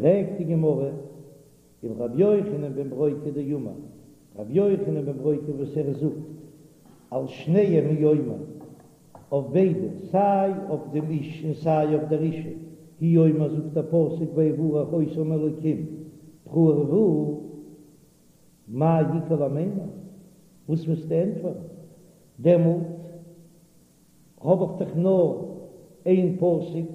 פרעגט די גמרא, ולרבי יוחנן בן ברוקה דאמר, רבי יוחנן בן ברוקה וואס ער זאגט על שניהם הוא אומר, אויף ביידע, סיי אויף דעם איש און סיי אויף דער אישה, הוא אומר זאגט דער פסוק ויברך אותם אלקים פרו ורבו, מאי איכא למימר, וואס וועסטו ענטפערן דעמאלט? האב איך דאך נאר איין פסוק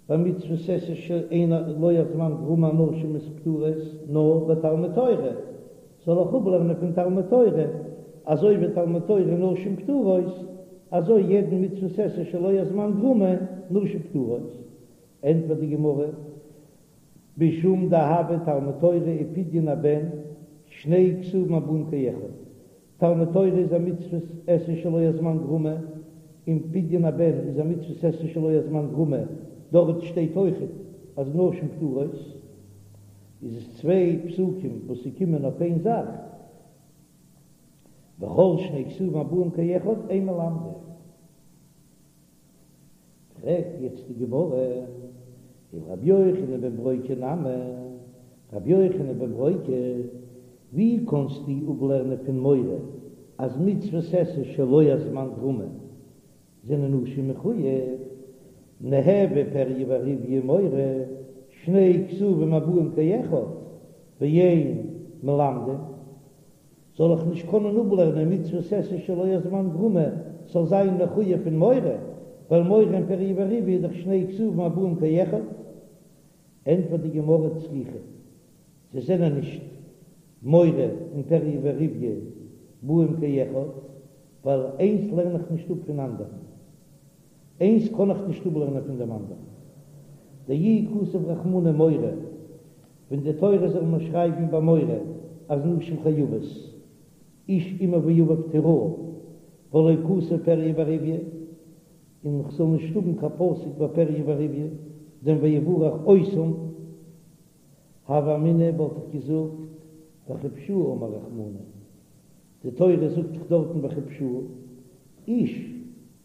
ביי מצוות עשה שאין לא הזמן גרמא נשים איז פטורות נאר ביי תלמוד תורה, זאל איך אפלערנען פון תלמוד תורה אזוי ווי תלמוד תורה נשים פטורות אזוי יעדן מצוות עשה שלא הזמן גרמא נשים פטורות? ענטפערט די גמרא, משום דהוה תלמוד תורה ופדיון הבן שני כתובים הבאים כאחד, תלמוד תורה איז א מצוות עשה שלא הזמן גרמא, און פדיון הבן איז א מצוות עשה שלא הזמן גרמא, דארט שטייט אויכעט אז נשים פטורות, איז עס צוויי פסוקים וואס ס'קומען אויף איין זאך, וכל שני כתובים הבאים כאחד אין מלמדין. פרעגט יעצט די גמרא, ולרבי יוחנן בן ברוקה נמי, רבי יוחנן בן ברוקה, ווי קאנסטו אפלערנען פון מורה אז מצוות עשה שלא הזמן גרמא זענען נשים מחוייב, ניהוו פריה ורביה ומורה, שני כתובים הבאים כאחד, ואין מלמדין, זאל איך נישט קענען אפלערנען מצוות עשה שלא הזמן גרמא זאל זיין מחויב פון מורה, ווייל מורה און פריה ורביה איז דאך שני כתובים הבאים כאחד? ענטפערט די גמרא צריכא, זיי זענען נישט מורה און פריה ורביה באים כאחד, ווייל איינס לערן איך נישט אפ פון אנדערן, איינס קען איך נישט אפלערנען פון דעם אנדערן. דאי כתב רחמנא מורה, ווען די תורה זאל מיר שרייבן ביי מורה אז נשים חייבות, איש אמו ואביו תיראו, ולא כתב פריה ורביה, און כ'זאל נישט האבן קיין פסוק ביי פריה ורביה, דעם ויברך אותם, הוה אמינא וואלט איך געזאגט וכבשוה אמר רחמנא, די תורה זאגט דאך דארטן וכבשוה, איש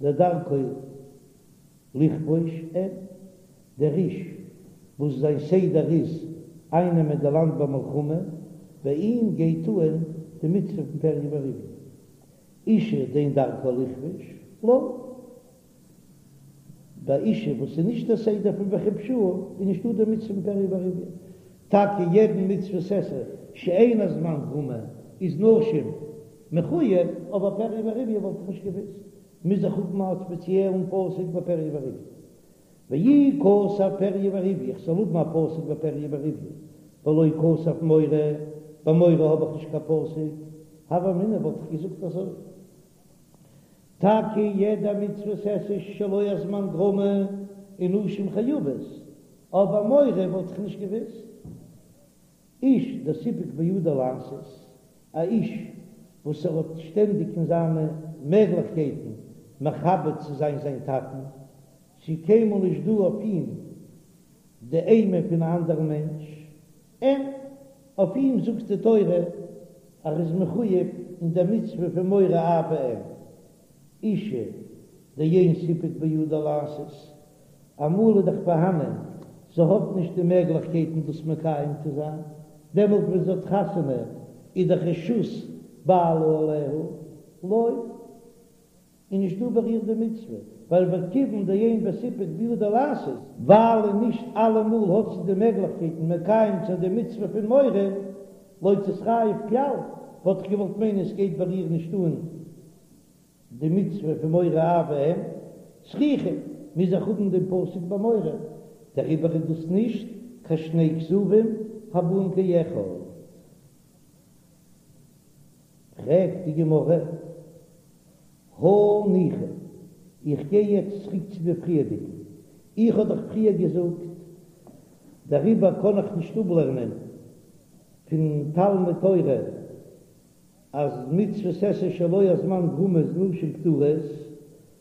דדרכו לכבוש אין, דער איש וואס זיין סדר איז אייננעמען די לאנד במלחמה, ביי אים גייט אהן די מצוה פון פריה ורביה, אישה דאין דרכה לכבוש, לא. ביי אישה וואס איז נישט דער סדר פון וכבשוה איז נישטא די מצוה פון פריה ורביה, טאקע יעדן מצוות עשה שאין הזמן גרמא איז נשים מחוייב, אבער פריה ורביה וואלט איך נישט געוואוסט, מוז איך האבן א ספעציעלן פסוק ביי פריה ורביה. ואי כתב פריה ורביה, איך זאל האבן א פסוק ביי פריה ורביה, ולא כתב מורה, ביי מורה האב איך נישט קיין פסוק, הוה אמינא וואלט איך געזאגט אזוי. טאקע יעדע מצוות עשה שלא הזמן גרמא איז נשים חייבות, אבער מורה וואלט איך נישט געוואוסט. איש דסיפק בידו לעשות, א איש וואס ער האט שטענדיג אין זיינע מעגליכקייטן מכבד צו זיין זיין טאטן, ס'איז קיינמאל נישט דא אויף אים די אימה פון א אנדערן מענטש, אין אויף אים זאגט די תורה אז ער איז מחויב אין דער מצוה פון מורה אב ואם, אישה דאין סיפק בידה לעשות, אמאל איז דאך פארהאנען זי האט נישט די מעגליכקייטן דאס מקיים צו זיין, דעמאלט ווען זי האט חתונה איז דאך רשות בעלה עליה, לא. איז נישט דא ביי איר די מצוה, ווייל וכיוון דאין בסיפק בידה לעשות, ווייל און נישט אלעמאל האט זי די מעגליכקייטן מקיים צו זיין די מצוה פון מורה, לא תתחייב כלל, וואלט איך געוואלט מיינען עס גייט ביי איר נישט אן די מצוה פון מורה אב ואם, צריכא, מוז איך האבן דעם פסוק ביי מורה, דעריבער איז דאס נישט קיין שני כתובים הבאים כאחד. פרעגט די גמרא, הניחא, איך גיי יעצט צוריק צו די פריערדיגן, איך האב דאך פריער געזאגט, דעריבער קען איך נישט אפלערנען פון תלמוד תורה אז מצוות עשה שלא הזמן גרמא איז נשים פטורות,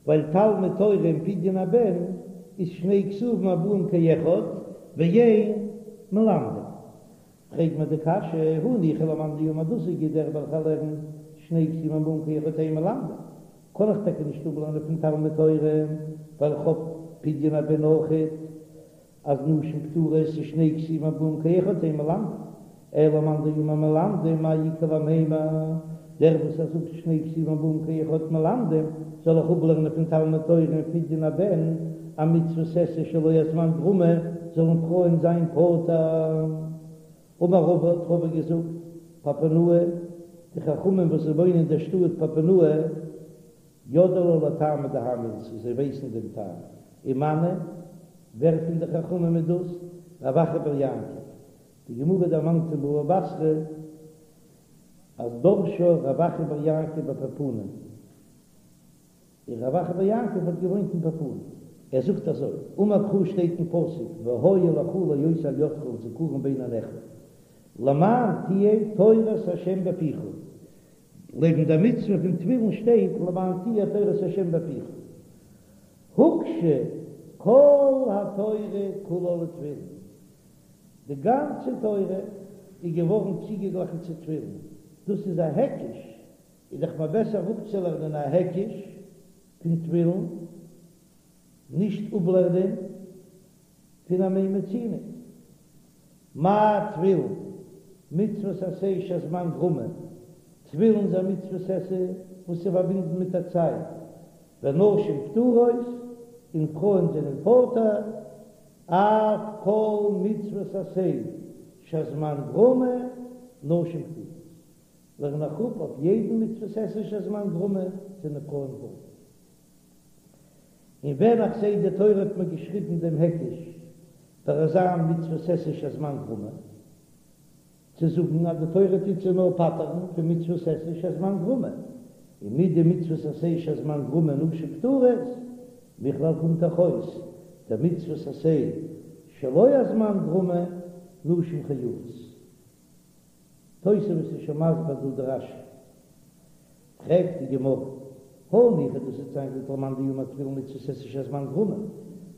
ווייל תלמוד תורה און פדיון הבן איז שני כתובים הבאים כאחד ואין מלמדין. פרעגט מען די קשיא, הניחא למאן דאמר דאס איז גוט דער וועלכער לערנט שני כתובים הבאים כאחד אין מלמדין, קען איך טאקע נישט אפלערנען פון תלמוד תורה ווייל איך האב פדיון הבן אויכעט. אז נשים פטורות איז שני כתובים הבאים כאחד אין מלמדין, אלא למאן דאמר מלמדין מאי איכא למימר, דער וואס ער זאגט שני כתובים הבאים כאחד מלמדין, זאל איך אפלערנען פון תלמוד תורה און פדיון הבן, א מצוות עשה שלא הזמן גרמא, זאלן פרויען זיין פטור. אמר רבא האט רבא געזאגט, פפונאי, די חכמים וואס זיי וואוינען אין דער שטאט פפונאי, ידעי לה לטעמא דהאי מילתא, זיי ווייסן דעם טעם, ומנו, ווער פון די חכמים איז דאס? רב אחא בר יעקב, די גמרא דערמאנט אין בבא בתרא אז דרשה רב אחא בר יעקב בפפונאי, און רב אחא בר יעקב האט געוואוינט אין פפונאי, ער זאגט אזוי, אמר קרא שטייט אין פסוק והיה לך לאות על ידך ולזכרון בין עיניך, למען תהיה תורת ה' בפיך, לעבן דער מצוה פון תפילין שטייט למען תהיה תורת ה' בפיך, הוקשה כל התורה כולה לתפילין, די גאנצע תורה איז געווארן צוגעגליכן צו תפילין, דאס איז א היקש, איז דאך מער בעסער אפצולערנען א היקש פון תפילין, נישט אפלערנען פון א מה מצינו. מה תפילין, מצוות עשה שהזמן גרמא, תפילין איז א מצוות עשה וואס איז פארבינדן מיט א צייט, ונשים פטורות, און פרויען זענען פטור, אף כל מצוות עשה שהזמן גרמא, נשים פטורות. לערן איך אפ אויף יעדן מצוות עשה שהזמן גרמא זענען פרויען פטור. און ווען איך זעה די תורה האט מיר געשריבן דעם היקש ביי אזא מצוות עשה שהזמן גרמא, צו זאגן אז די תורה טוט זיי נאר פטר'ן פון מצוות עשה שהזמן גרמא, און מדמצוות עשה שהזמן גרמא נשים פטורות, מכלל קומט דאך אויס דמצוות עשה שלא הזמן גרמא נשים חייבות. תוספות איז שוין מסביר דא די רש"י. פרעגט די גמרא, הניחא דאס וועט זיין גוט למאן דאמר תפילין מצוות עשה שהזמן גרמא,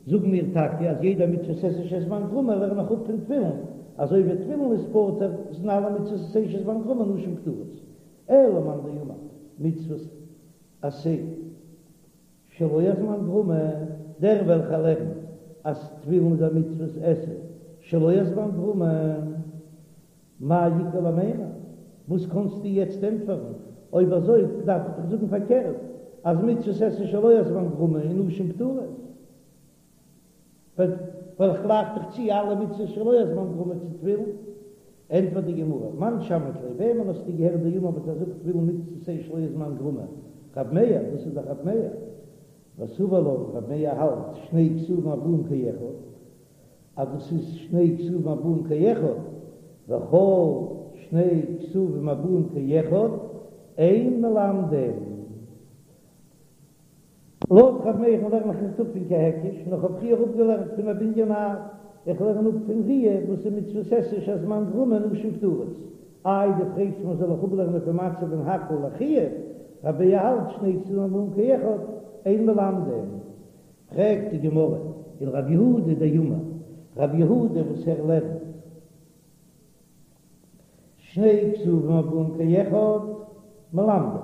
זאגן מיר טאקע אז יעדע מצוות עשה שהזמן גרמא לערן איך אפ פון תפילין, אזוי ווי תפילין איז פטור זענען אלע מצוות עשה שהזמן גרמא נשים פטורות, אלא למאן דאמר מצוות עשה שלא הזמן גרמא, דער וועלכער לערנט אז תפילין איז א מצוות עשה שלא הזמן גרמא, מאי איכא למימר? וואס קאנסטו יעצט ענטפערן? אויב אזוי דארף איך דאך זאגן פארקערט, אז מצוות עשה שלא הזמן גרמא און נשים פטורות. ווייל איך גלייך דאך צו אלע מצוות שלא הזמן גרמא צו תפילין. ענטפערט די גמרא, מאן שמעת ליה, וועמען האסטו געהערט דאמר וואס ער זאגט תפילין מצוות עשה שלא הזמן גרמא? רב מאיר, דאס איז דאך רב מאיר. וסבר לה, רב מאיר האלט שני כתובים הבאים כאחד. אז דאס איז שני כתובים הבאים כאחד, וכל שני כתובים הבאים כאחד אין מלמדין. לויט ר' מאיר'ן לערן איך נישט אפ פון קיין היקש, נאר כ'האב פריער אפגעלערנט פון א בנין אב, איך לערן אפ פון ראיה וואס איז מצוות עשה שהזמן גרמא נשים פטורות. איי דו פרעגסט מיר זאל איך אפלערנען פון מצה פון הקהל לחיוב, ר' מאיר האלט שני כתובים הבאים כאחד אין מלמדין. פרעגט די גמרא ולרב יהודה דאמר רב יהודה וואס ער לערנט שני כתובים הבאים כאחד מלמדין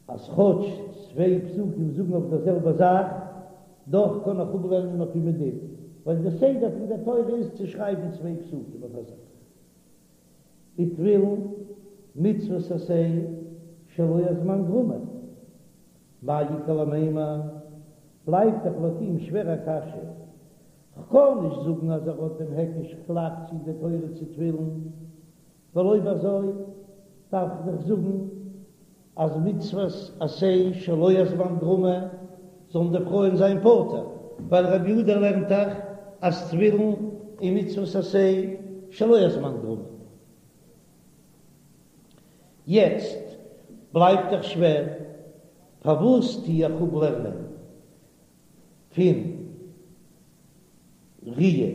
אז כאטש צוויי פסוקים זאגן אויף דער זעלבע זאך דאך קען איך אפלערנען אויף אים א דין ווייל די סדר פון דער תורה איז צו שרייבן צוויי פסוקים אויף א זאך. ותפילין מצוות עשה שלא הזמן גרמא, מאי איכא למימר, בלייבט דאך לויט אים שווער א קשיא, כ'קען נישט זאגן אז ער האט דעם היקש כ'גלייך צו די תורה צו תפילין, ווייל אויב אזוי דארף איך דאך זאגן אז מצוות עשה שלא הזמן גרמא זאלן די פרויען זיין פטור, ווייל רבי יהודה לערנט דאך אז תפילין איז מצוות עשה שלא הזמן גרמא. יעצט בלייבט דאך שווער, פארוואס טו איך אפלערנען פון ראיה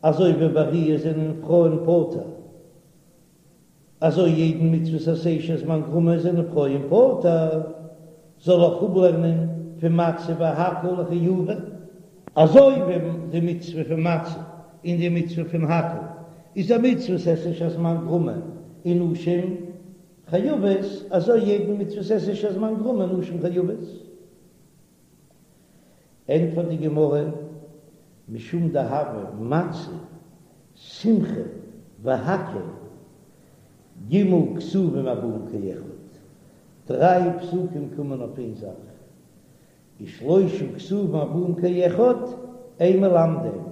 אזוי ווי ביי ראיה זענען פרויען פטור? אזוי יעדן מצוות עשה שהזמן גרמא זענען פרויען פטור, זאל איך אפלערנען פון מצה והקהל לחיובא, אזוי ווי די מצוה פון מצה און די מצוה פון הקהל איז א מצוות עשה שהזמן גרמא און נשים חייבות, אזוי יעדן מצוות עשה שהזמן גרמא נשים חייבות. ענטפערט די גמרא. משום דהוה מצה, שמחה והקהל, ג' כתובים הבאים כאחד, דריי פסוקים קומען אויף איין זאך, ושלושה כתובים הבאים כאחד אין מלמדין,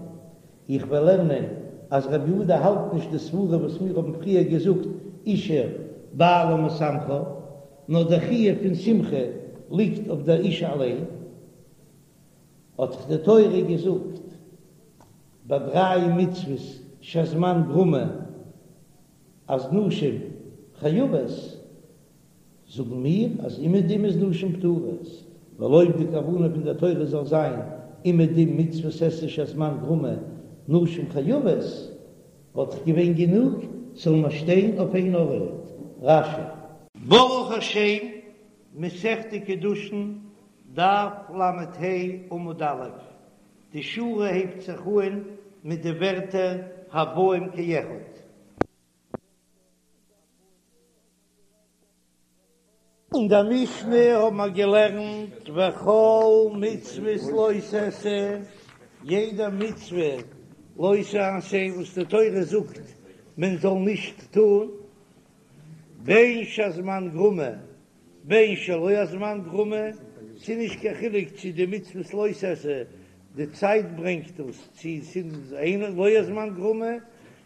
איך וועל לערנען אז רבי יהודה האלט נישט די סברה וואס מיר האבן פריער געזאגט אשה בעלה משמחה, נאר דער חיוב פון שמחה ליגט אויף דער אישה אליין, האט דאך די תורה געזאגט ביי דריי מצוות שהזמן גרמא אז נשים חייבות, זאגן מיר אז אומעדום איז נשים פטורות, ווייל אויב די כוונה פון דער תורה זאל זיין אומעדום מצוות עשה שהזמן גרמא נשים חייבות, וואלט דאך געווען גענוג ס'זאל נאר שטיין אויף איין ארט. רש"י. ברוך השם, מסכת קידושין, דף ל"ה עמוד א', די שורה הייבט זיך אהן מיט די ווערטער הבאים כאחד. אין דער משנה האבן מיר געלערנט וכל מצוות לא תעשה, יעדע מצוה לא תעשה וואס די תורה זאגט מען זאל נישט טון, בין שהזמן גרמא בין שלא הזמן גרמא, ס'איז נישט קיין חילוק צו די מצוות לא תעשה די צייט ברענגט דאס, צו ס'איז אין לא הזמן גרמא,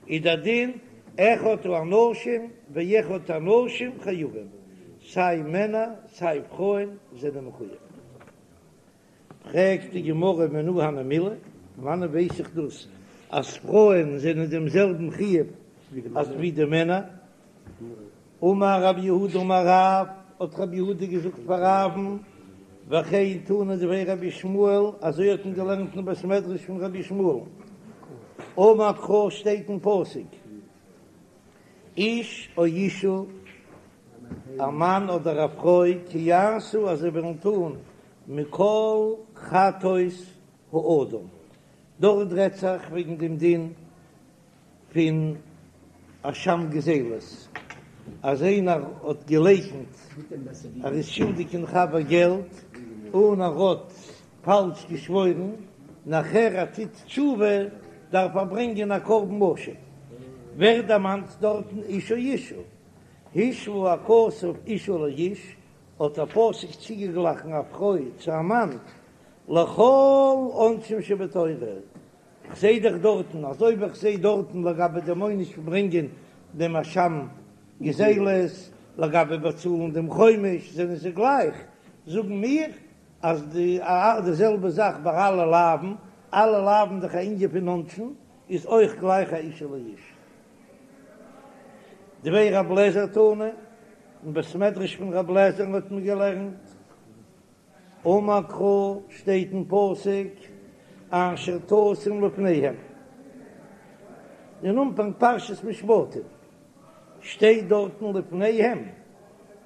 איז דער דין אחד האנשים ואחד הנשים חייבים, סיי מענער סיי פרויען זענען מחויב. פרעגט די גמרא מנא הני מילי, פון וואנען ווייס איך דאס אז פרויען זענען דעם זעלבן חיוב אזוי ווי די מענער? אמר רב יהודה אמר רב, האט רב יהודה געזאגט פאר רב'ן, וכן תנא דבי רבי ישמעאל, אזוי האט מען געלערנט אין בית מדרש פון רבי ישמעאל, אמר קרא שטייט אין פסוק, איש או אשה, א מאן אדער א פרוי, כי יעשו אז זיי וועלן טון מכל חטאות האדם, דארט רעדט זיך וועגן דעם דין פון אשם גזילות, אז איינער האט געלייקנט ער איז שולדיג אין חבר געלט און ער האט פאלש געשוואוירן, נאכער ער טוט תשובה דארף ער ברענגען א קרבן אשם, ווערט דערמאנט דארטן איש או אשה, השוה הכתוב אשה לאיש, האט דער פסוק צוגעגליכן א פרוי צו א מאן, לכל עונשים שבתורה, כ'זעה דאך דארטן, אזוי ווי כ'זעה דארטן לגבי דעם עונש פון ברענגען דעם אשם גזילות, לגבי באצאלן דעם חומש זענען זיי גלייך, זאגן מיר אז די די זעלבע זאך ביי אלע לאווין, אלע לאווין דאך א ענין פון עונשין, איז אויך גלייך א אשה לאיש. דבי רב לעזער תנא, אין בית מדרש פון רב לעזער'ן האט מען געלערנט. אמר קרא שטייט אין פסוק אשר תשים לפניהם, אין אנפאנג פרשת משפטים שטייט דארטן לפניהם,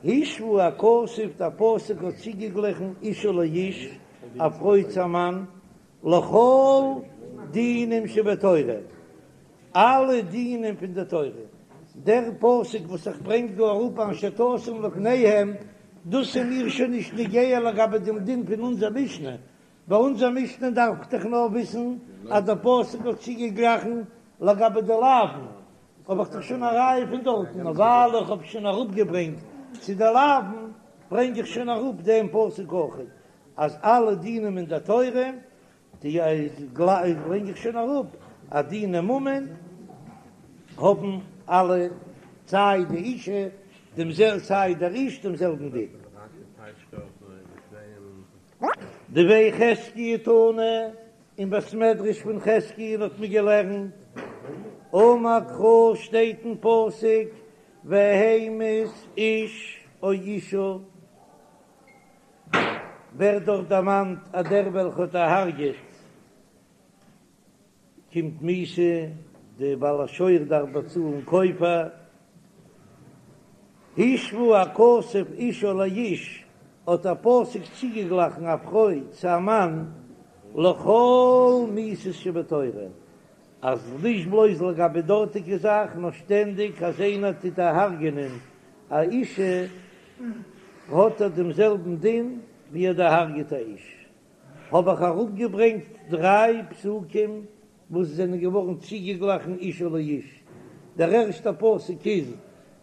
השוה הכתוב דער פסוק האט צוגעגליכן אשה לאיש, א פרוי צו א מאן, לכל דינים שבתורה, אלע דינים פון די תורה, דער פסוק וואס איך ברענג דא אראפ אשר תשים לפניהם, דאס איז מיר שוין נישט נוגע לגבי דעם דין פון אונזער משנה, ביי אונזער משנה דארף איך דאך נאר וויסן אז דער פסוק האט צוגעגליכן לגבי די לאווין, האב איך דאך שוין א ראיה פון דארטן, נאר ווייל איך האב שוין אראפגעברענגט צו די לאווין, ברענג איך שוין אראפ דעם פסוק אויך, אז אלע דינים אין דער תורה די ברענג איך שוין אראפ אז דיני ממון האבן אלע סיי די אישה דעם זעל סיי דער איש דעם זעלבן דין. דבי חזקיה תנא, אין בית מדרש פון חזקיה'ן האט מען געלערנט, אמר קרא שטייט אין פסוק והמית איש או אישה, ווערט דארט דערמאנט אז דער וועלכע האט דערהרגעט קומט מיתה, די בעל השור דארף באצאלן כופר, השוה הכתוב אישה לאיש, האט דער פסוק צוגעגליכן א פרוי צו א מאן, לכל מיתות שבתורה, אז נישט בלויז לגבי דארטיגע זאך, נאר שטענדיג אז איינער טוט דערהרגענען א אישה האט ער דעם זעלבן דין ווי ער דערהרגעט א איש. האב איך אראפגעברענגט דריי פסוקים וואס זענען געווארן צוגעגליכן אשה לאיש, דער ערשטער פסוק איז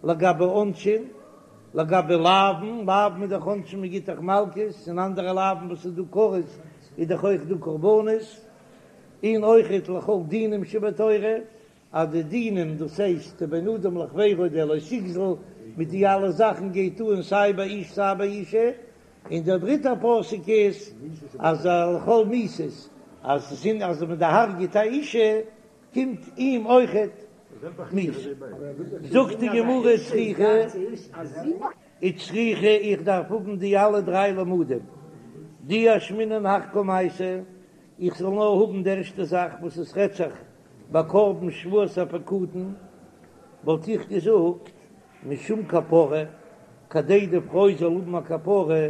לגבי עונשין, לגבי לאוין, לאוין איז דאך עונשין מען גיט דאך מלקות, און אנדערע לאוין וואס איז דא כרת איז דאך אויך דא קרבנות, און אויכעט לכל דינים שבתורה, אז די דינים דאס הייסט בין אדם לחבירו די לא תגזול מיט די אלע זאכן גייט אן סיי ביי איש סיי ביי אישה, און דער דריטער פסוק איז אז לכל מיתות אז אז מען דערהרגעט א אישה קומט אים אויכעט מיתה. זאגט די גמרא צריכא וצריכא איך דארף האבן די אלע דריי למודים דאי אשמעינן הך קמייתא איך זאל נאר האבן די ערשטע זאך וואס עס רעדט זיך ביי קרבן שבועת הפקדון וואלט איך געזאגט משום כפרה, כדי די פרוי זאל האבן א כפרה,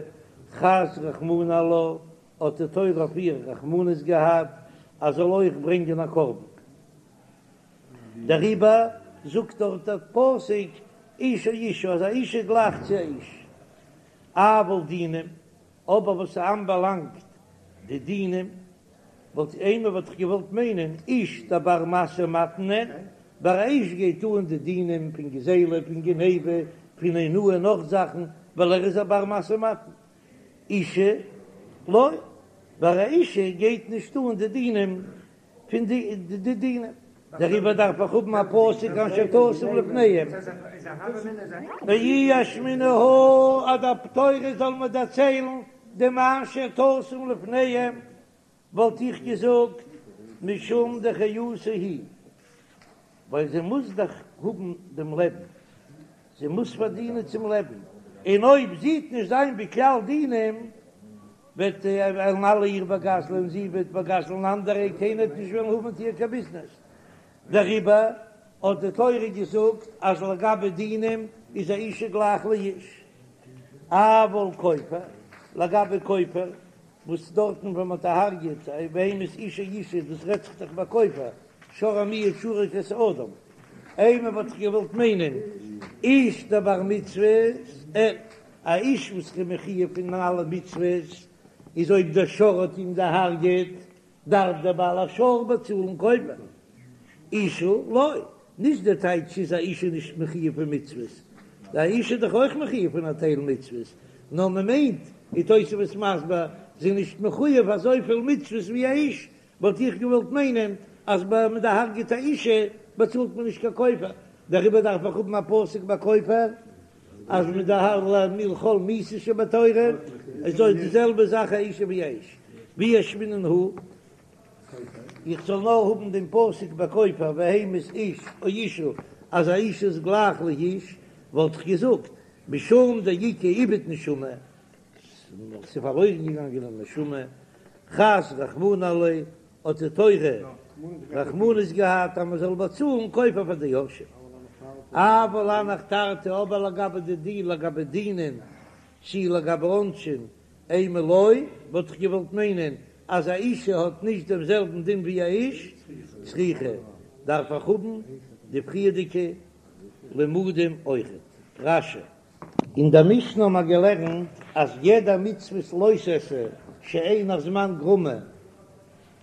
חס רחמנא עלה, האט די תורה אויף איר רחמנות געהאט אז זאל אויך ברענגען א קרבן. דעריבער זאגט דארט דער פסוק איש או אשה אז א אישה גלייכט צו א איש. אבל דינים, אבער וואס ס'אנבאלאנגט די דינים, וואלט אימא וואלט איך געוואלט מיינען איש דבר משא ומתן אין, ביי א איש גייט אן די דינים פון גזילה פון גניבה פון אונאה און נאך זאכן ווייל ער איז א בר משא ומתן, אישה לא, ביי א אישה גייט נישט אן די דינים פון די די דינים, דעריבער דארף איך האבן א פסוק אשר תשים לפניהם, ואי אשמעינן הא אז די תורה זאל מיר דערציילן דעם אשר תשים לפניהם, וואלט איך געזאגט משום דחיותה היא, ווייל זי מוז דאך האבן דעם לעבן, זי מוז פארדינען צום לעבן, און אויב זי וועט נישט זיין בכלל דינים, וועט וועלן אלע איר באגזלען, זי וועט באגזלען אנדערע, קיינער וועט נישט וועלן האבן מיט איר קיין ביזנעס. דעריבער האט די תורה געזאגט אז לגבי דינים איז א אישה גלייך לאיש, אבל כופר, לגבי כופר, וואס דארטן ווען מ'האט דערהרגעט והמית איש או אשה, דאס רעדט זיך דאך ביי כופר, שור המועד שהרג את האדם, אימא וואלט איך געוואלט מיינען איש דבר מצוות, א איש וואס איז מחויב פון אלע מצוות, איז אויב דער שור האט אים דערהרגעט, דארף דער בעל השור באצאלן כופר. אישה לא, נישט דער טייטש איז א אישה נישט מחויב פון מצוות, א אישה איז דאך אויך מחויב פון א טייל מצוות, נאר מען מיינט, ווי תוספות מסביר, זי איז נישט מחויב אזויפיל מצוות ווי א איש, וואלט איך געוואלט מיינען אז ביי מען דערהרגעט א אישה באצאלט מען נישט קיין כופר, דעריבער דארף איך האבן א פסוק ביי כופר אז מען דערהרג'ט לכל מיתות שבתורה, איז אויך די זעלבע זאך א אישה ווי א איש, ואי אשמעינן הא, איך זאל נאר האבן דעם פסוק ביי כופר והמית איש או אשה אז א אישה איז גלייך לאיש, וואלט איך געזאגט משום דאיכא איבוד נשמה, ס'איז פארלוירן געגאנגען א נשמה, חס רחמנא עליה, האט די תורה רחמנות געהאט אז מען זאל באצאלן כופר פאר די יורשים. אבל הנך תרתי, אבער לגבי די דין, לגבי דינין, צי לגבי עונשין, אימא לא, וואלט איך געוואלט מיינען אז א אישה האט נישט דעם זעלבן דין ווי א איש, צריכא, דארף איך האבן די פריערדיגע לימודים אויכעט. רש"י. אין דער משנה האבן מיר געלערנט אז יעדע מצוות לא תעשה שאין הזמן גרמא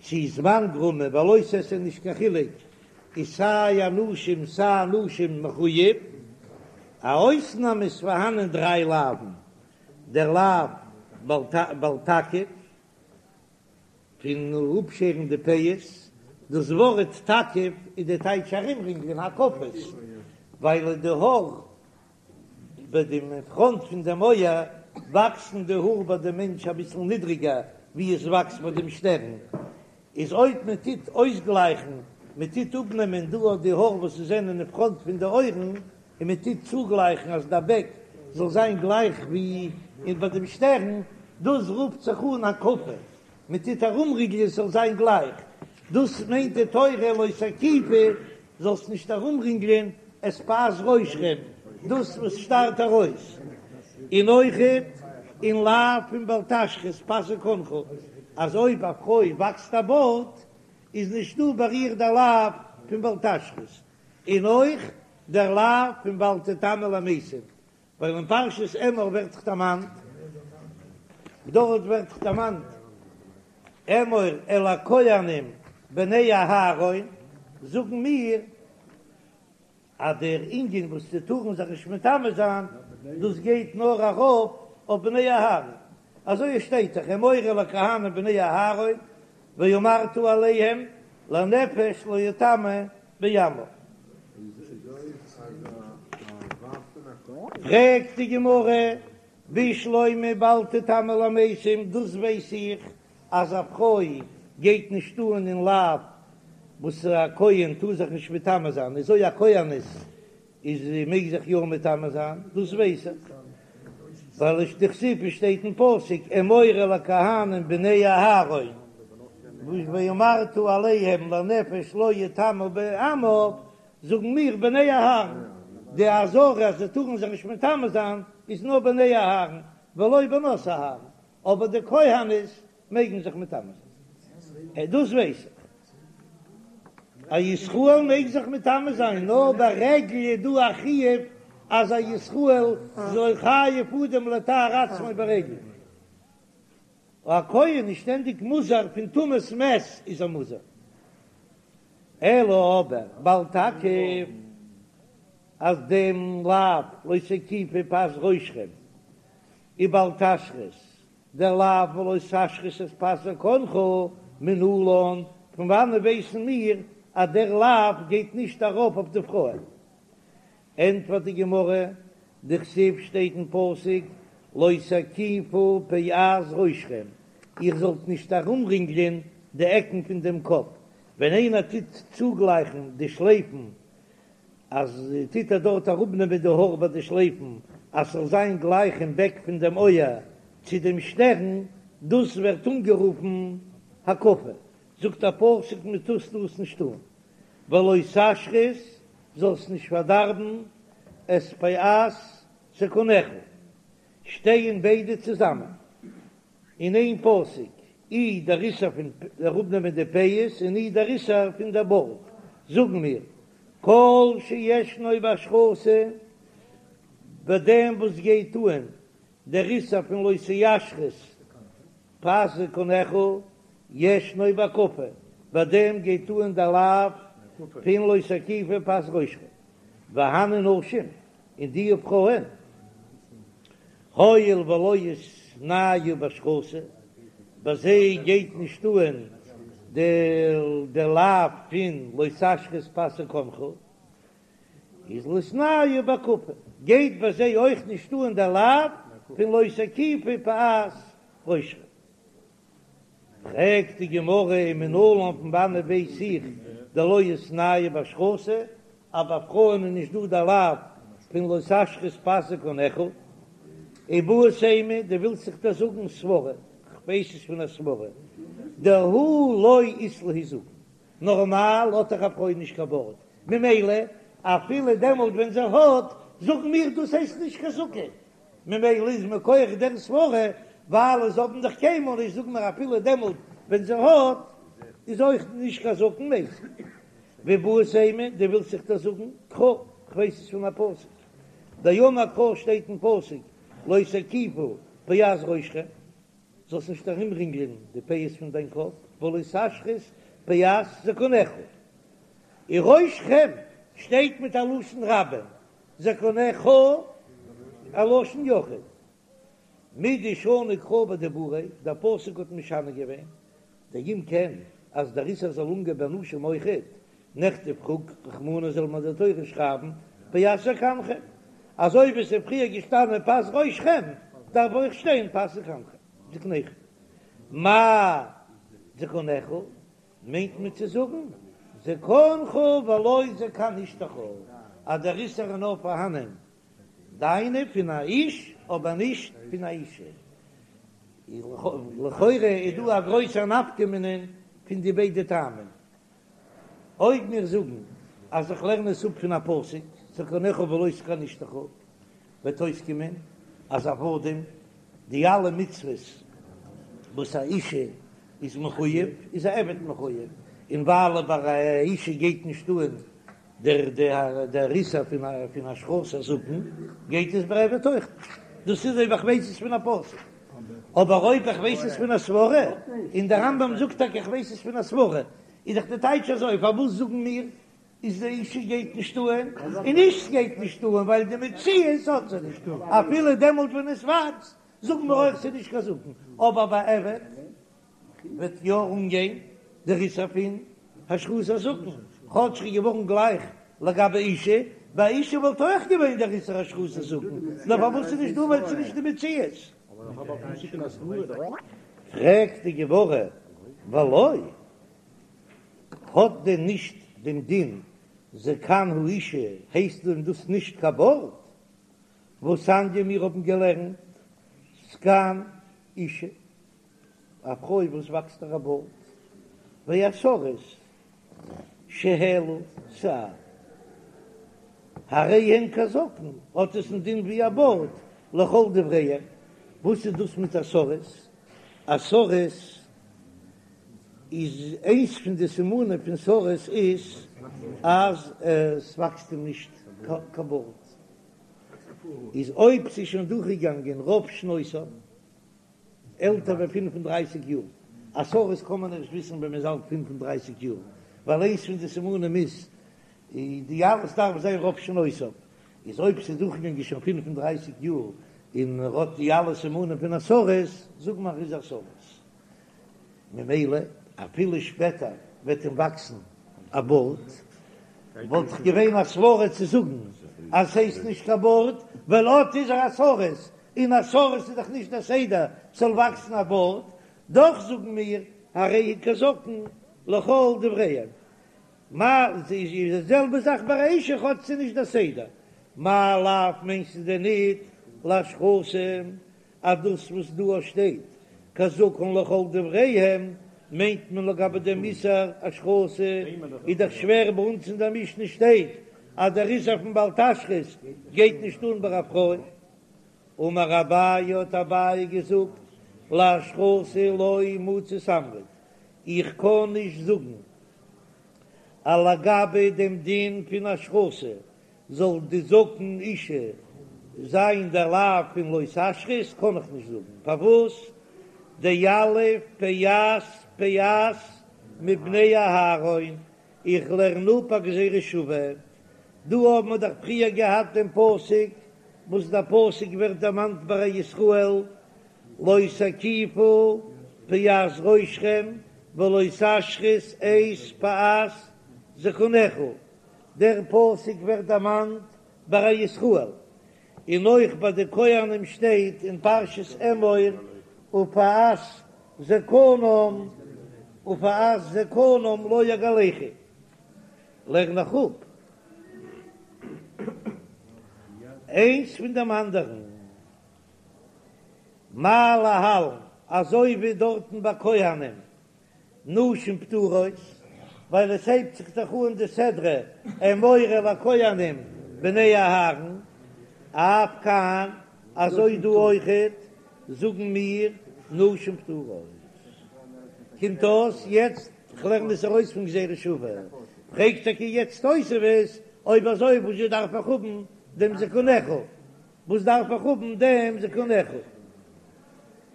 צי זמן גרמא ביי לא תעשה איז נישט קיין חילוק איז סיי אנשים סיי נשים מחוייב, א אויסנאם איז פארהאנען דריי לאווין, דער לאו בל תקיף, פון אפשערן די פאות, דאס ווארט תקיף איז די טייטש ארומרינגלען הקפות, ווייל די האר ביי דעם פראנט פון דעם אויער וואקסן די האר ביי דעם מענטש אביסל נידריגער ווי עס וואקסט ביי דעם שטערן, איז אויב מען טוט אויסגלייכן, מען טוט אפנעמען דא אט די האר וואס עס זענען אין פראנט פון די אויערן, און מען טוט צוגלייכן אז די בעק זאל זיין גלייך ווי אין ביי דעם שטערן, דאס רופט זיך אן הקפה, מען טוט ארומרינגלען עס זאל זיין גלייך, דאס מיינט די תורה לא תקיפו, זאלסט נישט ארומרינגלען את פאת ראשכם, דאס וואס שטארט ארויס, און אויכעט אין לאו פון בל תשחית פאת זקנך, אז אויב א פרוי וואקסט א בארד איז נישט דא ביי איר דער לאו פון בל תשחית, און אויך דער לאו פון ואל תטמא למתים, ווייל אין פרשת אמור ווערט דאך דערמאנט, דארט ווערט דאך דערמאנט. אמור אל הכהנים בני אהרן, זאגן מיר אז דער ענין וואס זיי טארן זיך נישט מטמא זיין, דאס גייט נאר ארויף אויף בני אהרן, אזוי עס שטייט דאך אמור אל הכהנים בני אהרן ואמרת אליהם לנפש לא יטמא בעמיו. פרעגט די גמרא, בשלמא בל תטמא למתים, דאס ווייס איך אז א פרוי גייט נישט אן אין לאו וואס א כהן טאר זיך נישט מטמא זיין, איז אויב א כהנת איז זי מעג זיך יא מטמא זיין, דאס ווייס איך, ווייל עס דכתיב עס שטייט אין פסוק אמור אל הכהנים בני אהרן ואמרת אליהם לנפש לא יטמא בעמיו, זאגן מיר בני אהרן, די אזהרה אז זיי טארן זיך נישט מטמא זיין איז נאר בני אהרן ולא בנות אהרן, אבער די כהנות מעגן זיך מטמא זיין, דאס ווייס איך. א ישראל מעג זיך מטמא זיין, נאר ברגל איז דא א חיוב אז א ישראל איז חייב אדם לטהר עצמו ברגל. א כהן איז שטענדיג מוזהר פון טומאת מת איז ער מוזהר. אלא אבער בל תקיף אז דעם לאו לא תקיפו פאת ראשכם ובל תשחית דער לאו ולא תשחית את פאת זקנך מנלן, פון וואנען ווייסן מיר אז דער לאו גייט נישט ארויף אויף די פרויען? ענטפערט די גמרא, דכתיב שטייט אין פסוק לא תקיפו פאת ראשכם, איר זאלט נישט ארומרינגלען די עקן פון דעם קאפ, ווען איינער טוט צוגלייכן די שלייפן אז טוט ער דארט אראפנעמען די האר ביי די שלייפן אז ס'זאל זיין גלייך אין בעק פון דעם אויער צו דעם שטערן, דאס ווערט אנגערופן הקפה, זאגט א פסוק מען טאר דאס נישט טון, ולא תשחית, זאלסט נישט פארדארבן את פאת זקנך, שטייען ביידע צוזאמען. אין איין פסוק, אי דער איסור פון אראפנעמען די פאות און אי דער איסור פון דער בארד, זאגן מיר, כל שישנו בהשחתה, ביי דעם וואס גייט אן דער איסור פון לא תשחית פאת זקנך, ישנו בהקפה, ביי דעם גייט אן דער לאו פון לא תקיפו פאת ראשכם, והני נשים, און די פרויען, הואיל ולא איתנהו בהשחתה, ביי זיי גייט נישט אן די לאו פון לא תשחית פאת זקנך, איז לא איתנהו בהקפה, גייט ביי זיי אויך נישט אן די לאו פון לא תקיפו פאת ראשכם. פרעגט די גמרא ומנלן פון וואנעט ווייס איך דלא איתנהו בהשחתה אז ביי פרויען איז נישט דא די לאו פון לא תשחית פאת זקנך איבעית אימא דו ווילסט זיך דאס זאגן סברא כ'ווייס עס פון א סברא דהא לא אית להו זקן נארמאל האט דאך א פרוי נישט קיין בארד ממילא אפילו דעמאלט ווען זי האט זאגן מיר דאס הייסט נישט קיין זקן ממילא איז מכח דער סברה, ווייל זיי האבן דאך קיינמאל נישט, זאגן מיר אפילו דעמאלט ווען זי האט, איז אויך נישט קיין זקן מת. ואיבעית אימא, דו ווילסט זיך דאס זאגן, קרא, כ'ווייס עס פון א פסוק. דאמר קרא שטייט אין פסוק, לא תקיפו פאת ראשכם, זאלסט נישט ארומרינגלען די פאות פון דיין קאפ, ולא תשחית פאת זקנך. און ראשכם שטייט מיט א לשון רבים, זקנך א לשון יחיד. מדשני קרא בדיבוריה, דער פסוק האט משנה געווען, דאם כן אז דער איסור זאל אנגיין ביי נשים אויכעט, נכתוב רחמנא זאל מען די תורה שרייבן פאת זקנכם, אזוי ווי עס איז פריער געשטאנען פאת ראשכם דארף אויך שטיין פאת זקנכם, זקניכם. מאי זקנך? מיינט מען צו זאגן זקנך ולא זקן אשתך, אז דער איסור איז נאר פארהאנען דיינע פון א איש אבער נישט פון א אישה. לכאורה איז דא א גרויסער נפקא מינה פון די ביידע טעמים. אויב מיר זאגן אז איך לערן עס אפ פון א פסוק זקנך ולא זקן אשתך, וועט אויסקומען אז עבדים, די אלע מצוות וואס א אישה איז מחויב, איז א עבד מחויב, און ווייל ביי א אישה גייט נישט אן דער דער איסור פון פון השחתת הזקן, גייט עס ביי עבד אויך נישט, דאס איז אויב איך ווייס עס פון א פסוק. אבער אויב איך ווייס עס פון א סברה, און דער רמב"ם זאגט טאקע איך ווייס עס פון א סברה, איז דאך די טייטש אזוי, פארוואס זאגן מיר איז די אישה גייט נישט אהן, און איש גייט נישט אהן ווייל די מציאות האט זי נישט, אפילו דעמאלט ווען עס וואקסט זאגן מיר אויך ס'איז נישט קיין זקן, אבער ביי עבד וועט יא אנגיין דער איסור פון השחתת הזקן, כאטש ס'איז געווארן גלייך לגבי אישה, ביי אישה וואלט אויך געווען דער איסור השחתת הזקן, נאר פארוואס ס'איז נישט דא ווייל ס'איז נישט די מציאות. פרעגט די גמרא, ולא, האט דען נישט דעם דין זקן האישה, הייסט דען דאס נישט קיין בארד? והתניא מיר האבן געלערנט זקן אישה, א פרוי וואס וואקסט איר א בארד, והסריס שהעלו שער, הרי הן כזקן, האט עס א דין ווי א בארד, לכל דבריהם, וואס איז דאס מיט א סריס? א סריס איז איינס פון די סימנים פון סריס איז אז עס וואקסט אים נישט קיין בארד, איז אויב ס'איז שוין דורכגעגאנגען רוב שנותיו, עלטער ווי 35 יאר, א סריס קען מען ערשט וויסן ווען מ'איז אלט 35 יאר, ווייל איינס פון די סימנים איז די אלעס דארף זיין רוב שנותיו, איז אויב ס'איז דורכגעגאנגען שוין 35 יאר און ער האט די אלע סימנים פון א סריס, זאג מיר ער איז א סריס. ממילא אפילו שפעטער וועט אים וואקסן א בארד, וואלט דאך געווען א סברה צו זאגן אז ס'הייסט נישט קיין בארד, ווייל אט איז ער א סריס, און א סריס איז דאך נישט דער סדר ס'זאל וואקסן א בארד, דאך זאגן מיר הרי הוא כזקן לכל דבריהם. מה איז די זעלבע זאך ביי א אישה כאטש ס'איז נישט דער סדר, מאי לאו מיינסטו דען ניט להשחתה אז דאס וואס דא שטייט כזקן לכל דבריהם מיינט מען לגבי דעם איסור השחתה, איז דאך שווער ביי אונז אין דער משנה שטייט אז דער איסור פון בל תשחית גייט נישט אן ביי א פרוי. אמר אביי האט אביי געזאגט להשחתה לא מצית אמרת, איך קען נישט זאגן אז לגבי דעם דין פון השחתה זאל די זקן אישה זיין דער לאו פון לא תשחית, קען איך נישט זאגן פארוואס דיליף פאת פאת מבני אהרן, איך לערן אפ א גזירה שווה, דא האבן מיר דאך פריער געהאט דעם פסוק וואס דער פסוק ווערט דערמאנט ביי א ישראל לא תקיפו פאת ראשכם ולא תשחית את פאת זקנך, דער פסוק ווערט דערמאנט ביי א ישראל, און אויך ביי די כהנים שטייט אין פרשת אמור ופאת זקנם ופאת זקנם לא יגלחו, לערן איך אפ איינס פון דעם אנדערן, מה להלן, אזוי ווי דארטן ביי כהנים נשים פטורות, ווייל עס הייבט זיך דאך אן די סדרה אמור אל הכהנים בני אהרן, אף כאן, אזוי דא אויכעט זאגן מיר נשים פטורות. קומט אויס יעצט, כ'לערן עס ארויס פון גזירה שוה, פרעגט טאקע יעצט תוספות, אויב אזוי וואזשע דארף איך האבן דעם זקנך? וואס דארף איך האבן דעם זקנך?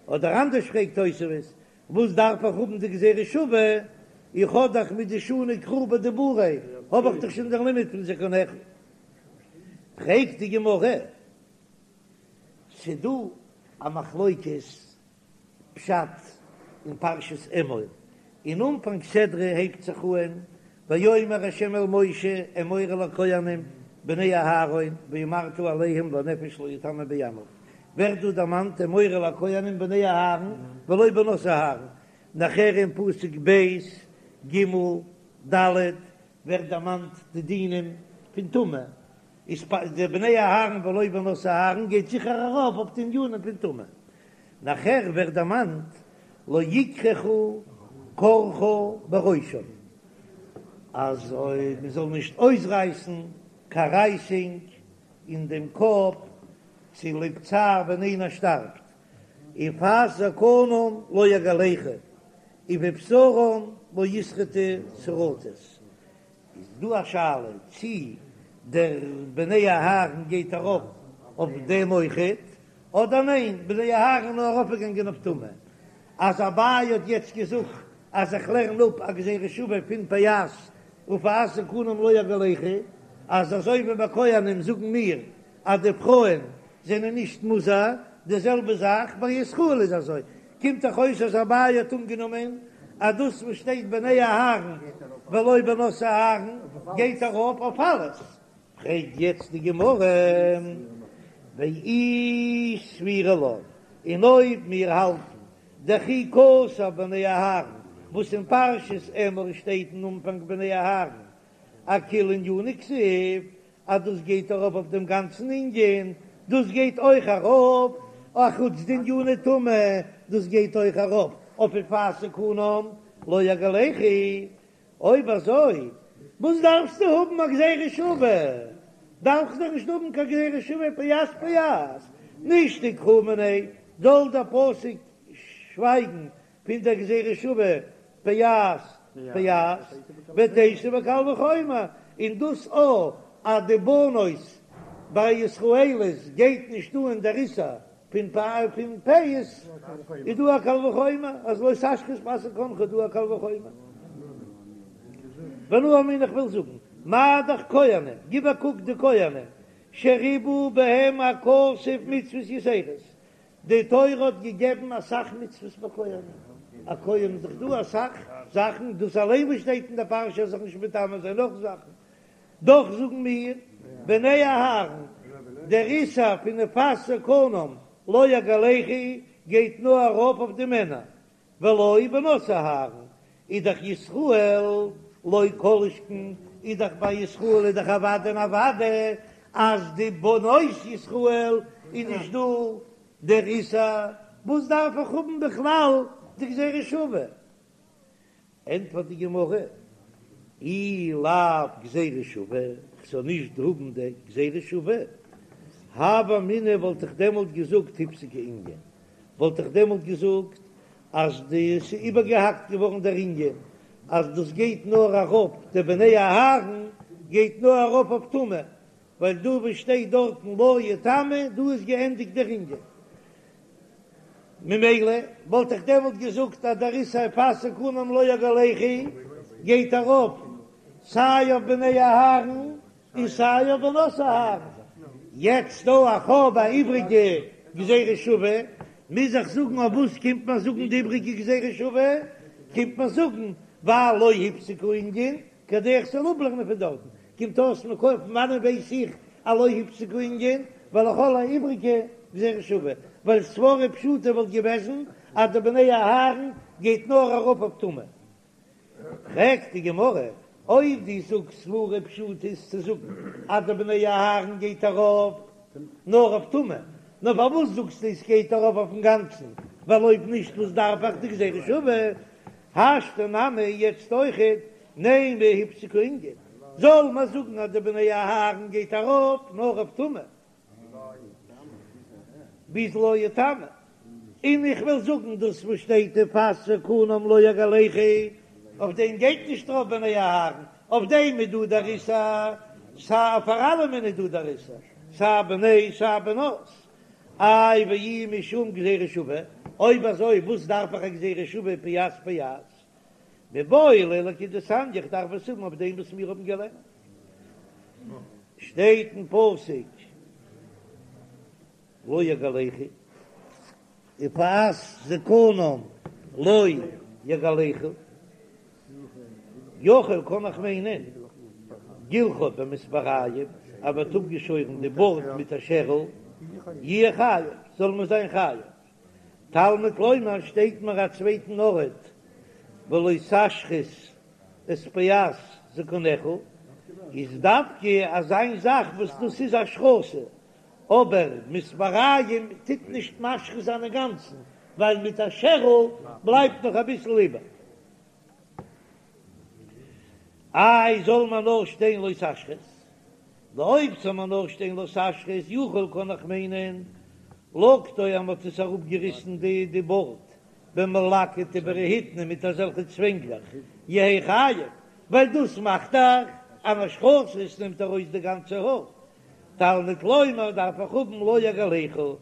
אדער אנדערש פרעגט תוספות, וואס דארף איך האבן די גזירה שווה, איך האב דאך מדשני קרא בדיבוריה, האב איך דאך שוין דער לימוד פון זקנך. פרעגט די גמרא, ס'דא א מחלוקת פשט אין פרשת אמור, אין אנפאנג סדרה הייבט זיך אהן ויאמר ה' אל משה אמור אל הכהנים בני אהרן ואמרת אליהם לנפש לא יטמא בעמיו, ווערט דא דערמאנט אמור אל הכהנים בני אהרן ולא בנות אהרן, נאכער אין פסוק ב' ג' ד' ווערט דערמאנט די דינים פון טומאה, איז די בני אהרן ולא בנות אהרן גייט זיכער ארויף אויף די ענינים פון טומאה, נאכער ווערט דערמאנט לא יקרחו קרחה בראשם, אז מען זאל נישט אויסרייסן קיין רייסינג אין דעם קאפ צוליב צער ווען איינער שטארבט, ופאת זקנם לא יגלחו, ובבשרם לא ישרטו שרטת. איז דא א שאלה צי דער בני אהרן גייט ארויף אויף דעם אויכעט, אדער ניין, בני אהרן נאר ארויפגעגאנגען אויף טומאה. אז אביי האט יעצט געזאגט אז איך לערן אפ א גזירה שווה פון פאת ופאת זקנם לא יגלחו, אז אזוי ווי ביי כהנים זאגן מיר אז די פרויען זענען נישט מוזהר, די זעלבע זאך ביי ישראל איז אזוי, קומט דאך אויס אז אביי האט אנגענומען אז דאס וואס שטייט בני אהרן ולא בנות אהרן גייט ארויף אויף אלעס, פרעגט יעצט די גמרא, ואי סבירא לן, און אויב מיר האלטן דכי כתב בני אהרן, וואס אין פרשת אמור שטייט אין אנפאנג בני אהרן, אכוליה ענינא כתיב, אז דאס גייט ארויף אויף דעם גאנצן ענין, דאס גייט אויך ארויף אחוץ די עניני טומאה, דאס גייט אויך ארויף אויף ופאת זקנם לא יגלחו, אויב אזוי וואס דארפסטו האבן א גזירה שווה? דארפסט דאך נישט האבן קיין גזירה שווה פאת פאת, נישתוק קרא מיניה, זאל דער פסוק שווייגן פון דער גזירה שווה פאת פאת ותיתי בקל וחומר, און דאס א אז די בנות ביי ישראליות גייט נישט אן דער איסור פון פאה פון פאות איז דא א קל וחומר אז לא תשחית פאת זקנך איז דא א קל וחומר. ואנא אמינא איך וויל זאגן מה דאך כהנים גיב א קוק די כהנים שריבה בהם הכתוב מצוות יתירות די תורה האט געגעבן אסאך מצוות ביי כהנים א כהן איז דאך דא אסאך זאכן דאס אליין וואס שטייט אין די פרשה איז זיך נישט מטמא זיין נאך זאכן דאך זאגן מיר, בני אהרן, דער איסור פון ופאת זקנם לא יגלחו גייט נאר ארויף אויף די מענער, ולא בנות אהרן, איז דאך ישראל לא כל שכן, איז דאך ביי ישראל איז דאך אוודאי און אוודאי אז די בנות ישראל איז נישט דא דער איסור, וואס דארף איך האבן בכלל די גזירה שווה? ענטפערט די גמרא, אי לאו גזירה שווה, כ'זאל נישט האבן די גזירה שווה, הוה אמינא וואלט איך דעמאלט געזאגט הפסיק הענין, וואלט איך דעמאלט געזאגט אז די ס'איז איבערגעהאקט געווארן דער ענין, אז דאס גייט נאר ארויף די בני אהרן גייט נאר ארויף אויף טומאה, ווייל דא וואס שטייט דארטן לא יטמא דא איז געענדיגט דער ענין. ממילא וואלט איך דעמאלט געזאגט אז דער איסור ופאת זקנם לא יגלחו גייט ארויף סיי אויף בני אהרן און סיי אויף בנות אהרן. יעצט דא איך האב א איבריגע גזירה שווה, מוז איך זאגן אויף וואס קומט מען זאגן די איבריגע גזירה שווה? קומט מען זאגן ווייל לא הפסיק הענין כדי איך זאל אפלערנען פון דארטן, קומט אויס מכח פון וואנען ווייס איך אז לא הפסיק הענין, ווייל איך האב א איבריגע גזירה שווה, ווייל סברא פשוטה וואלט געוועזן אז די בני אהרן גייט נאר ארויף אויף טומאה. פרעגט די גמרא, אויב דו זאגסט סברא פשוטה איז צו זאגן אז די בני אהרן גייט ארויף נאר אויף טומאה, נאר פארוואס זאגסטו עס גייט ארויף אויפן גאנצן, ווייל אויב נישט וואס דארף איך די גזירה שווה? השתא נמי יעצט אויכעט נימא הפסיק הענין, זאל מען זאגן אז די בני אהרן גייט ארויף נאר אויף טומאה ביז לא יטמא, און איך וויל זאגן דאס וואס שטייט ופאת זקנם לא יגלחו, אויף דעם גייט נישט ארויף בני אהרן, אויף דעם איז דא דער איסור, סיי פאר אלעמען איז דא דער איסור, סיי בני סיי בנות, איי ואי משום גזירה שווה, אויב אזוי וואס דארף איך א גזירה שווה פאת פאת? מיבעי ליה לכדתניא, איך דארף עס האבן אויף דעם וואס מיר האבן געלערנט. שטייט אין פסוק לא יגלחו ופאת זקנם לא יגלחו. יכול קען איך מיינען גילחו במספריים, אז מ'האט אפגעשוירן די בארד מיט א שערל, יהיה חייב, זאל מען זיין חייב. תלמוד לומר שטייט מיר א צווייטן ארט ולא תשחית את פאת זקנך, איז דווקא אזא זאך וואס דאס איז השחתה, אבער מספריים טוט נישט משחית זיין אינגאנצן, ווייל מיט א שערל בלייבט נאך אביסל איבער. איי זאל מען נאר שטיין לא תשחית? אויב זאל מען נאר שטיין לא תשחית יכול קען איך מיינען לקטו אז מ'האט עס אראפגעריסן די די בארד במלקט וברהיטני מיט אזעלכע צווענגלעך יהא חייב ווייל דאס מאכט דאך אן השחתה עס נעמט ארויס די גאנצע האר תלמוד לומר דארף איך האבן לא יגלחו.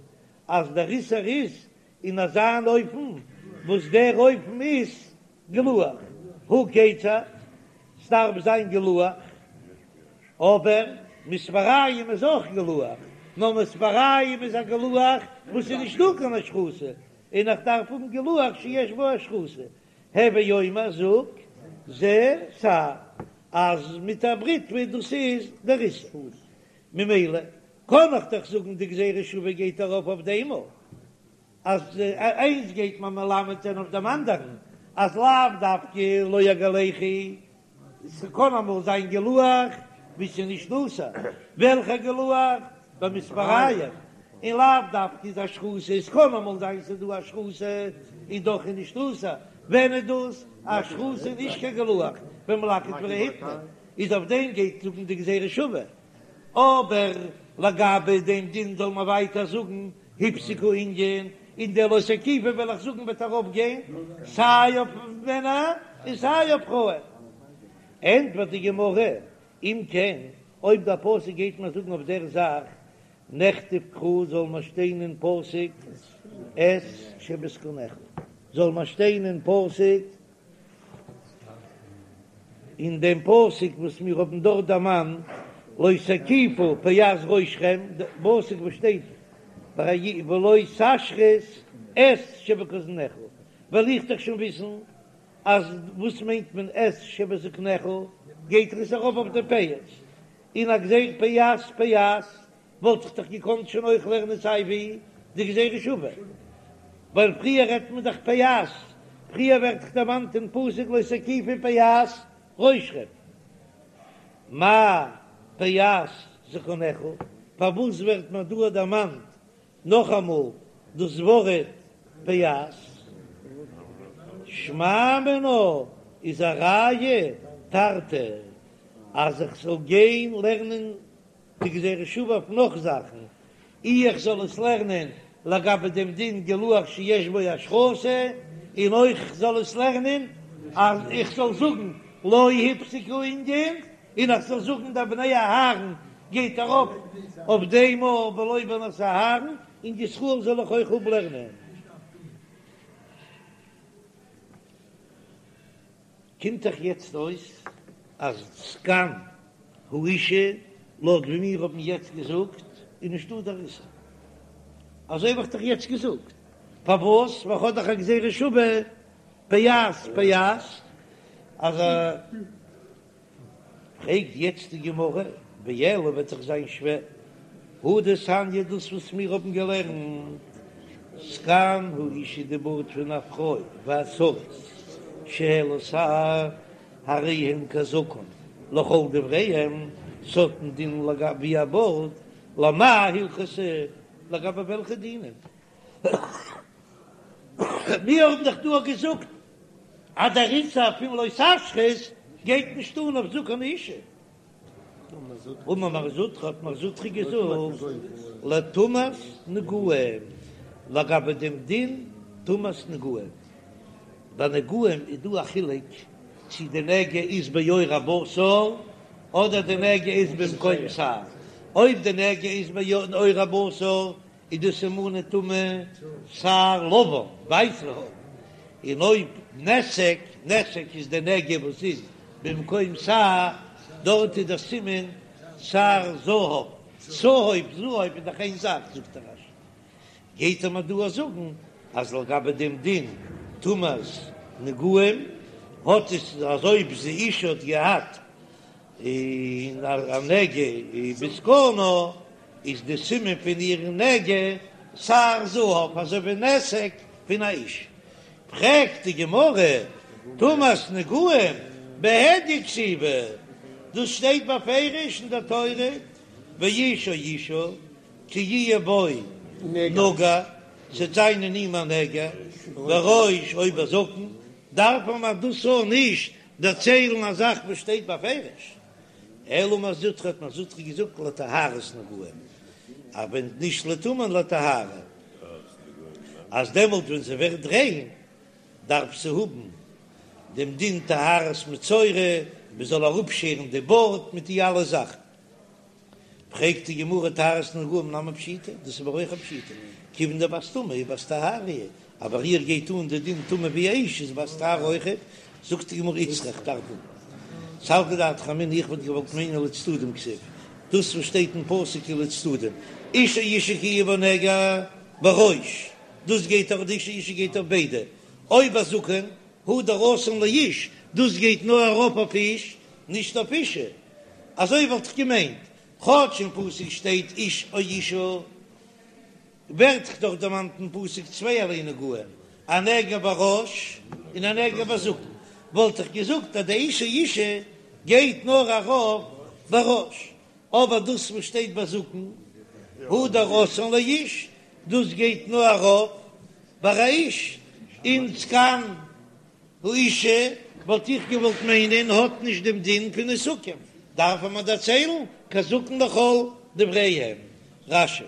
אז דער איסור איז אין אזא אן אופן וואס דער אופן איז גילוח, הא כיצד? ס'דארף זיין גילוח, אבער מספריים איז אויך גילוח, נאר מספריים איז א גילוח וואס איז נישט דא קיין השחתה, און איך דארף האבן גילוח שיש בו השחתה, הוי אומר זאג זה שער אז מיט א בריטווע דאס איז דער איסור, ממילא קען איך דאך זאגן די גזירה שוה גייט ארויף אויף דעם אויך, אז איינס גייט מען מלמד זיין אויף דעם אנדערן אז לאו דווקא לא יגלחו, ס'קען אמאל זיין גילוח ווי ס'איז נישט אסור, וועלכע גילוח? במספריים, און לאו דווקא איז השחתה, עס קען אמאל זיין ס'איז דא השחתה און דאך איז נישט אסור, ווען איז דאס השחתה איז נישט קיין גילוח במלקט ורהיטני, איז אויף דעם גייט זאגן די גזירה שוה, אבער לגבי דעם דין זאל מען ווייטער זאגן הפסיק הענין, און דער לא תקיפו וועל איך זאגן וועט ארויף גיין סיי אויף מענער און סיי אויף פרויען. ענטפערט די גמרא, אם כן, אויב דער פסוק גייט מיר זאגן אויף דער זאך, נכתוב קרא זאל מען שטיין אין פסוק את שבזקנך, זאל מען שטיין אין פסוק אין דעם פסוק וואס מיר האבן דארט דערמאנט, לא תקיפו פאת ראשכם, די פסוק וואס שטייט ביי ולא תשחית את שבזקנך, וועל איך דאך שוין וויסן אז וואס מיינט מען את שבזקנך, גייט עס ארויף אויף די פאות, און א גזירה פאת פאת וואלט איך דאך געקאנט שוין אויך לערנען סיי ווי די גזירה שווה, ווייל פריער רעדט מען דאך פאת, פריער ווערט דאך דערמאנט אין פסוק לא תקיפו פאת ראשכם, מאי פאת זקנך, פארוואס ווערט מען דא דערמאנט נאכאמאל דאס ווארט פאת? שמע מינה איז א ראיה תרתי אז איך זאל גיין לערנען די גזירה שוה אויף נאך זאכן, אי איך זאל עס לערנען לגבי דעם דין גילוח שיש בו השחתה, און אויך איך זאל עס לערנען אז איך זאל זאגן לא הפסיק הענין, און איך זאל זאגן די בני אהרן גייט ארויף אויף דעם אויך ולא בנות אהרן, און ישראל זאל איך אויך אפלערנען. קומט דאך יעצט אויס אז זקן האשה לויט ווי מיר האבן יעצט געזאגט איז נישטא דער איסור, אזוי האב איך דאך יעצט געזאגט, פארוואס? ווייל כ'האב דאך א גזירה שווה פאת פאת אז א. פרעגט יעצט די גמרא, ואלא וועט דאך זיין שווער, הא דתניא דאס וואס מיר האבן געלערנט, זקן האשה די בארד פון א פרוי והסריס שהעלה שער הרי הן כזקן לכל דבריהם, ס'האט א דין לגבי א בארד, למאי הלכתא, לגבי וועלכע דינים? מיר האבן דאך דא געזאגט אז דער איסור פון לא תשחית גייט נישט אן אויף זקן האשה. אמר מר זוטרא האט מר זוטרא געזאגט לטומאת נגעים לגבי דעם דין טומאת נגעים. ביי נגעים איז דא א חילוק צי די נגע איז בעור הבשר אדער די נגע איז במקום שער. אויב די נגע איז בעור הבשר איז די סימני טומאה שער לבן, ווייסע האר, און אויב נתק, נתק איז די נגע וואס איז במקום שער, דארט איז דער סימן שער זהב, צהוב זהב איז דאך איין זאך, זאגט דער רש"י, גייט ער מיר דא זאגן אז לגבי דעם דין טומאת נגעים האט עס אז אויב די אשה האט געהאט און א נגע בזקנה איז די סימן פון איר נגע שער זהב אזוי ווי נתק פון א איש. פרעגט די גמרא, טומאת נגעים בהדיא כתיבא, דאס שטייט בפירוש אין דער תורה, ואיש או אשה כי יהיה בו נגע, ס'וועט זיין אין אים א נגע, בראש או בזקן, דארף מען דאס אויך נישט דערציילן א זאך וואס שטייט בפירוש, אלא אמר מר זוטרא האט מר זוטרא געזאגט לטהרת נגעים, אבער נישט לטומאה לטהרה, אז דעמאלט ווען זי ווערט ריין דארף זי האבן דעם דין טהרת מצורע, מען זאל אראפשערן די בארד מיט די אלע זאכן. פרעגט די גמרא טהרת נגעים נמי פשיטא, דאס איז אבער אויך א פשיטא, כיוון דבת טומאה היא בת טהרה היא, אז ביי איר גייט אן די דין טומאה ווי אש איז בת טהרה אויכעט, זאגט די גמרא איצטריך דארף האבן סלקא דעתך אמינא איך וואלט געוואלט מיינען לצדדים כתיב, דאס וואס שטייט אין פסוק איז לצדדים, איש או אשה כי יהיה בו נגע בראש, דאס גייט אויף די איש או אשה גייט אויף ביידע, או בזקן הדר אתאן לאיש, דאס גייט נאר ארויף אויף איש, נישט אויף אשה, אזוי וואלט איך געמיינט, כאטש אין פסוק שטייט איש או אשה, ווערט דאך דערמאנט אין פסוק צווייערליי נגעים, א נגע בראש און א נגע בזקן, וואלט איך געזאגט אז די איש או אשה גייט נאר ארויף בראש, אבער דאס וואס שטייט בזקן הדר אתאן לאיש, דאס גייט נאר ארויף ביי א איש, און זקן האשה וואלט איך געוואלט מיינען האט נישט דעם דין פון נתקים, דארף מען דערציילן כזקן לכל דבריהם. רש"י.